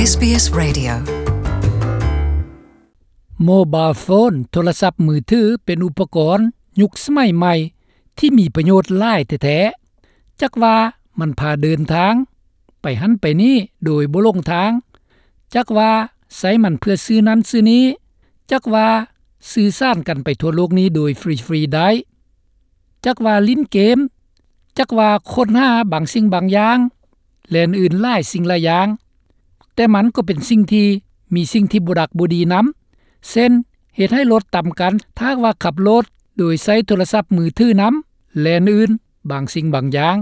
ເອສບີເອສ Radio. ໂມບາຍໂຟນ ໂທລະສັບມືຖື ເປັນອຸປະກອນຍຸກສະໄໝໃໝ່ທີ່ມີປະໂຫຍດຫຼາຍແທ້ໆ. ຈັກວ່າມັນພາເດີນທາງໄປຫັ້ນໄປນີ້ໂດຍບໍ່ຫຼົງທາງ, ຈັກວ່າໃຊ້ມັນເພື່ອຊື້ນັ້ນຊື້ນີ້, ຈັກວ່າສື່ສານກັນໄປທົ່ວໂລກນີ້ໂດຍຟຣີໆໄດ້, ຈັກວ່າຫຼິ້ນເກມ, ຈັກວ່າຄົ້ນຫາບາງສິ່ງບາງຢ່າງ ແລະ ອື່ນໆຫຼາຍສິ່ງຫຼາຍຢ່າງ, ແຕ່ມັນກໍເປັນສິ່ງທີ່ມີສິ່ງທີ່ບໍ່ດັກບໍ່ດີນຳ, ເຊັ່ນ ເຮັດໃຫ້ລົດຕຳກັນ ຖ້າຫາກວ່າຂັບລົດໂດຍໃຊ້ໂທລະສັບມືຖືນຳ ແລະ ອື່ນໆບາງສິ່ງບາງຢ່າງ.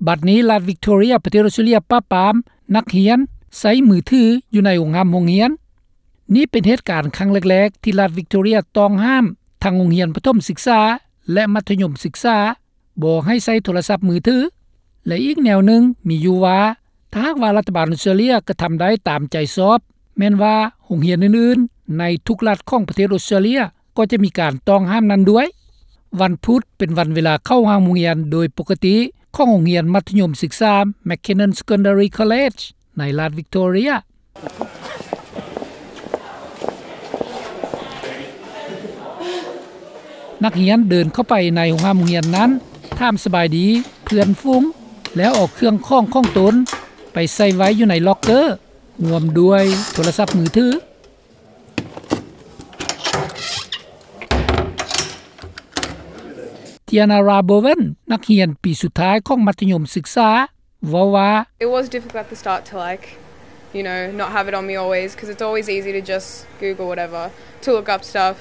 ບັດນີ້ລັດວິກຕໍເຣຍ ປະເທດອົດສະຕຣາເລຍ ປາບປາມນັກຮຽນໃຊ້ມືຖືຢູ່ໃນໂຮງຮ່ຳໂຮງຮຽນ. ນີ້ເປັນເຫດການຄັ້ງແລກໆທີ່ລັດວິກຕໍເຣຍຕ້ອງຫ້າມທັງໂຮງຮຽນປະຖົມສຶກສາ ແລະ ມັດທະຍົມສຶກສາ ບໍ່ໃຫ້ໃຊ້ໂທລະສັບມືຖື. ແລະ ອີກແນວໜຶ່ງມີຢູ່ວ່າ ຖ້າຫາກວ່າລັດຖະບານອົດສະຕຣາເລຍກະທຳໄດ້ຕາມໃຈຊອບ, ແມ່ນວ່າໂຮງຮຽນອື່ນໆໃນທຸກລັດຂອງປະເທດອົດສະຕຣາເລຍກໍຈະມີການຕ້ອງຫ້າມນັ້ນດ້ວຍ. ວັນພຸດເປັນວັນເວລາເຂົ້າຫ້ອງຮຽນໂດຍປົກກະຕິຂອງໂຮງຮຽນມັດທະຍົມສຶກສາ McKinnon Secondary College ໃນລັດວິກຕໍເຣຍ. ນັກຮຽນເດີນເຂົ້າໄປໃນໂຮງຮ່ຳໂຮງຮຽນນັ້ນ, ຖາມສະບາຍດີເພື່ອນຝູງ ແລ້ວເອົາເຄື່ອງຂອງຂອງຕົນໄປໃສ່ໄວ້ຢູ່ໃນລັອກເກີ, ຮ່ວມດ້ວຍໂທລະສັບມືຖື. Tiana Rabowen ນັກຮຽນປີສຸດທ້າຍຂອງມັດທະຍົມສຶກສາ ເວົ້າວ່າ It was difficult at the start to, like, you know, not have it on me always, 'cause it's always easy to just Google whatever to look up stuff.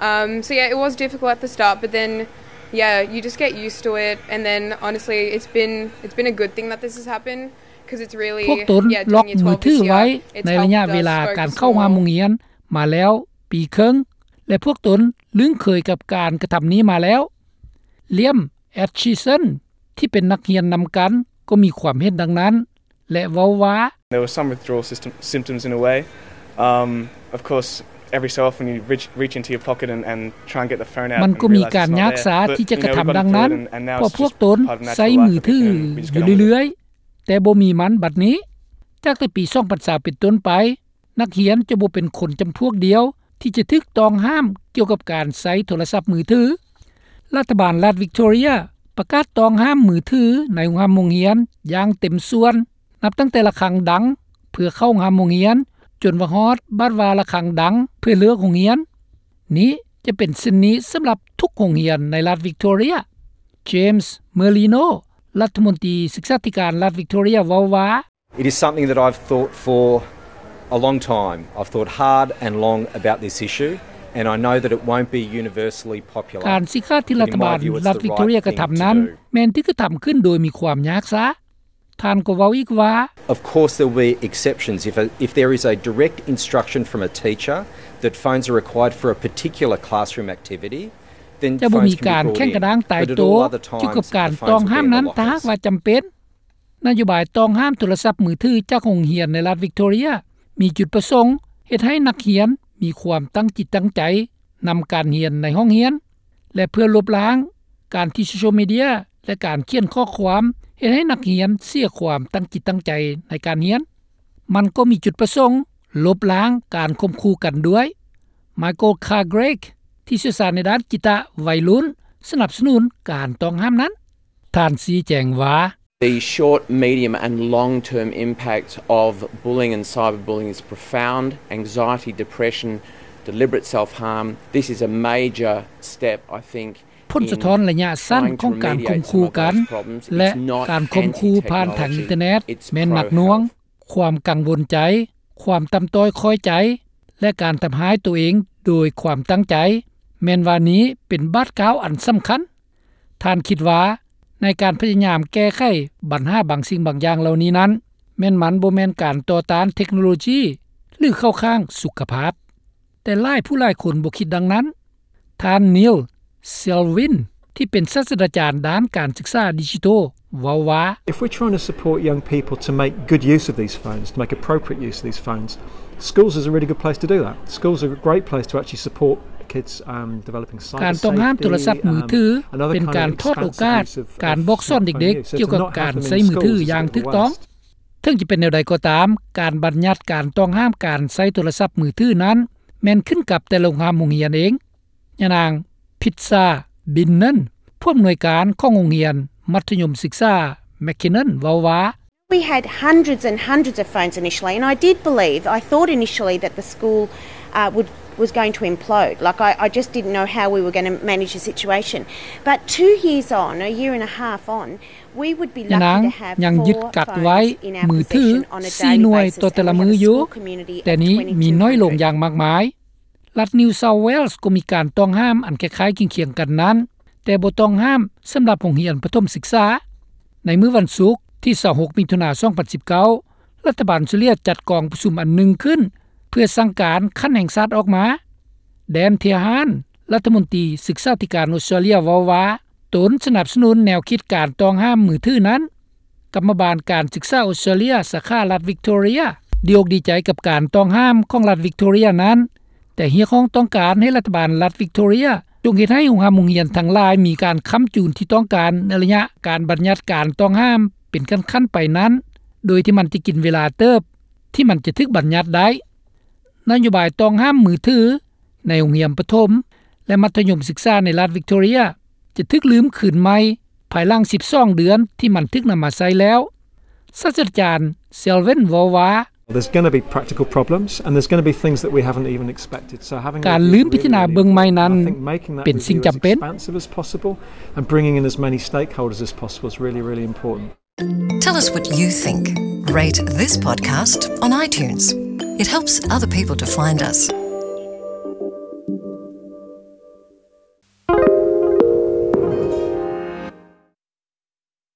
Um, so yeah, it was difficult at the start, but then, yeah, you just get used to it, and then honestly, it's been, it's been a good thing that this has happened, 'cause it's really, ພວກຕົນ yeah, ລັອກ doing your ມື twelve ທິດ this ໄວ້ year, it's ໃນໄລຍະເວລາການເຂົ້າຮ່ວມໂຮງຮຽນມາແລ້ວປີເຄິ່ງ ແລະ ພວກຕົນລຶ້ງເຄີຍກັບການກະທຳນີ້ມາແລ້ວ. Liam Atchison ທີ່ເປັນນັກຮຽນນຳກັນກໍມີຄວາມເຫັນດັ່ງນັ້ນ ແລະ ເວົ້າວ່າ There were some withdrawal system, symptoms in a way. Um, of course, every so often you reach, reach into your pocket and, and try and get the phone out ມັນກໍມີການຍາກຊາທີ່ຈະກະທຳດັ່ງນັ້ນ ເພາະພວກຕົນໃຊ້ມືຖືຢູ່ເລື້ອຍໆ ແຕ່ບໍ່ມີມັນບັດນີ້. ຈາກແຕ່ປີສອງພັນຊາວເປັນຕົ້ນໄປ, ນັກຮຽນຈະບໍ່ເປັນຄົນຈຳພວກດຽວທີ່ຈະຖືກຕ້ອງຫ້າມກ່ຽວກັບການໃຊ້ໂທລະສັບມືຖື. ລັດຖະບານລັດວິກຕໍເຣຍປະກາດຕ້ອງຫ້າມມືຖືໃນໂຮງຮ່ຳໂຮງຮຽນຢ່າງເຕັມສ່ວນ, ນັບຕັ້ງແຕ່ລະຄັງດັງເພື່ອເຂົ້າໂຮງຮ່ຳໂຮງຮຽນ ຈົນວ່າຮອດບາດວ່າລະຄັງດັງເພື່ອເລີກໂຮງຮຽນ. ນີ້ຈະເປັນເຊັ່ນນີ້ສຳລັບທຸກໂຮງຮຽນໃນລັດວິກຕໍເຣຍ. James Merlino ລັດຖະມົນຕີສຶກສາທິການລັດວິກຕໍເຣຍ ເວົ້າວ່າ It is something that I've thought for a long time. I've thought hard and long about this issue, and I know that it won't be universally popular. ການຊີ້ຂາດທີ່ລັດຖະບານລັດວິກຕໍເຣຍກະທຳນັ້ນ ແມ່ນຖືກກະທຳຂຶ້ນໂດຍມີຄວາມຍາກຊາ. ທ່ານກໍເວົ້າອີກວ່າ Of course there will be exceptions. If a, if there is a direct instruction from a teacher that phones are required for a particular classroom activity, then ຈະບໍ່ມີການແຂ່ງກະດ້າງຕາຍໂຕກ່ຽວກັບການຕ້ອງຫ້າມນັ້ນ ຖ້າຫາກວ່າຈຳເປັນ. ນະໂຍບາຍຕ້ອງຫ້າມໂທລະສັບມືຖືຈາກໂຮງຮຽນໃນລັດວິກຕໍເຣຍ ມີຈຸດປະສົງເຮັດໃຫ້ນັກຮຽນມີຄວາມຕັ້ງຈິດຕັ້ງໃຈນຳການຮຽນໃນຫ້ອງຮຽນ ແລະ ເພື່ອລົບລ້າງການທີ່ໂຊຊຽວມີເດຍ ແລະ ການຂຽນຂໍ້ຄວາມເຮັດໃຫ້ນັກຮຽນເສຍຄວາມຕັ້ງຈິດຕັ້ງໃຈໃນການຮຽນ. ມັນກໍມີຈຸດປະສົງລົບລ້າງການຂົ່ມຂູ່ກັນດ້ວຍ. Michael Cargrave ທີ່ຊ່ຽວຊານໃນດ້ານກິດຕະໄວລຸ້ນ ສະໜັບສະໜູນການຕ້ອງຫ້າມນັ້ນ. ທ່ານຊີ້ແຈງວ່າ The short, medium and long-term impact of bullying and cyberbullying is profound. Anxiety, depression, deliberate self-harm. This is a major step, I think, ຜົນສະທ້ອນໄລຍະສັ້ນຂອງການຂົ່ມຂູ່ກັນ ແລະ ການຂົ່ມຂູ່ຜ່ານທາງອິນເຕີແນັດ ແມ່ນໜັກໜ່ວງ. ຄວາມກັງວົນໃຈ, ຄວາມຕ່ຳຕ້ອຍຂ້ອຍໃຈ ແລະ ການທຳຮ້າຍໂຕເອງໂດຍຄວາມຕັ້ງໃຈ ແມ່ນວ່ານີ້ເປັນບາດກ້າວອັນສຳຄັນ. ທ່ານຄິດວ່າໃນການພະຍາຍາມແກ້ໄຂບັນຫາບາງສິ່ງບາງຢ່າງເຫຼົ່ານີ້ນັ້ນ ແມ່ນມັນບໍ່ແມ່ນການຕໍ່ຕ້ານເທັກໂນໂລຈີ ຫຼື ເຂົ້າຂ້າງສຸຂະພາບ, ແຕ່ຫຼາຍຜູ້ຫຼາຍຄົນບໍ່ຄິດດັ່ງນັ້ນ. ທ່ານ Neil Selwyn ທີ່ເປັນສາດສະດາຈານດ້ານການສຶກສາດິຈິໂຕ ເວົ້າວ່າ If we're trying to support young people to make good use of these phones, to make appropriate use of these phones, schools is a really good place to do that. Schools are a great place to actually support kids, um, developing cyber safety. ການຕ້ອງຫ້າມໂທລະສັບມືຖື ເປັນການທອດໂອກາດການບອກສອນເດັກໆກ່ຽວກັບການໃຊ້ມືຖືຢ່າງຖືກຕ້ອງ. ເຖິງຈະເປັນແນວໃດກໍຕາມ, ການບັນຍັດການຕ້ອງຫ້າມການໃຊ້ໂທລະສັບມືຖືນັ້ນ ແມ່ນຂຶ້ນກັບແຕ່ໂຮງຮຽນເອງ. ຍານາງ ພິດຊາ ບິນເນີນ ຜູ້ອຳນວຍການຂອງໂຮງຮຽນມັດທະຍົມສຶກສາ McKinnon ເວົ້າວ່າ: We had hundreds and hundreds of phones initially, and I did believe, I thought initially that the school, uh, would, was going to implode. Like, I, I just didn't know how we were gonna manage the situation. But two years on, a year and a half on, we would be lucky to have four phones in our possession on a daily basis. ຍານາງຍັງຍຶດກັກໄວ້ມືຖືສີ່ໜ່ວຍຕໍ່ແຕ່ລະມື້ຢູ່, ແຕ່ນີ້ມີນ້ອຍລົງຢ່າງມາກມາຍ. ລັດ New South Wales ກໍມີການຕ້ອງຫ້າມອັນຄ້າຍໆຄຽງໆກັນນັ້ນ, ແຕ່ບໍ່ຕ້ອງຫ້າມສຳລັບໂຮງຮຽນປະຖົມສຶກສາ. ໃນມື້ວັນສຸກທີຊາວຫົກ ມິຖຸນາ ສອງພັນສິບເກົ້າ ລັດຖະບານອົດສະຕຣາເລຍຈັດກອງປະຊຸມອັນໜຶ່ງຂຶ້ນ ເພື່ອສັ່ງການຂັ້ນແຫ່ງຊາດອອກມາ. ແດນ ເທຮານ ລັດຖະມົນຕີສຶກສາທິການອົດສະຕຣາເລຍເວົ້າວ່າ ຕົນສະໜັບສະໜູນແນວຄິດການຕ້ອງຫ້າມມືຖືນັ້ນ. ກຳມະບານການສຶກສາອົດສະຕຣາເລຍ ສາຂາລັດວິກຕໍເຣຍ ດີອົກດີໃຈກັບການຕ້ອງຫ້າມຂອງລັດວິກຕໍເຣຍນັ້ນ, ແຕ່ຮຽກຮ້ອງຕ້ອງການໃຫ້ລັດຖະບານລັດວິກຕໍເຣຍຈົ່ງເຮັດໃຫ້ໂຮງຮ່ຳໂຮງຮຽນທັງຫຼາຍມີການຄ້ຳຈູນທີ່ຕ້ອງການໃນໄລຍະການບັນຍັດການຕ້ອງຫ້າມເປັນຂັ້ນໆໄປນັ້ນ, ໂດຍທີ່ມັນຈະກິນເວລາເຕີບທີ່ມັນຈະຖືກບັນຍັດໄດ້. ນະໂຍບາຍຕ້ອງຫ້າມມືຖືໃນໂຮງຮຽນປະຖົມ ແລະ ມັດທະຍົມສຶກສາໃນລັດວິກຕໍເຣຍ ຈະຖືກລືມຄືນໃໝ່ພາຍຫຼັງສິບສອງເດືອນທີ່ມັນຖືກນຳມາໃຊ້ແລ້ວ. ສາດສະດາຈານ ເຊລເວັນ ເວົ້າວ່າ: There's gonna be practical problems and there's gonna be things that we haven't even expected. So having a review is really important. ການລືມພິຈາລະນາເບິ່ງໃໝ່ນັ້ນເປັນສິ່ງຈຳເປັນ. I think making that review as expansive as possible and bringing in as many stakeholders as possible is really, really important. Tell us what you think. Rate this podcast on iTunes. It helps other people to find us.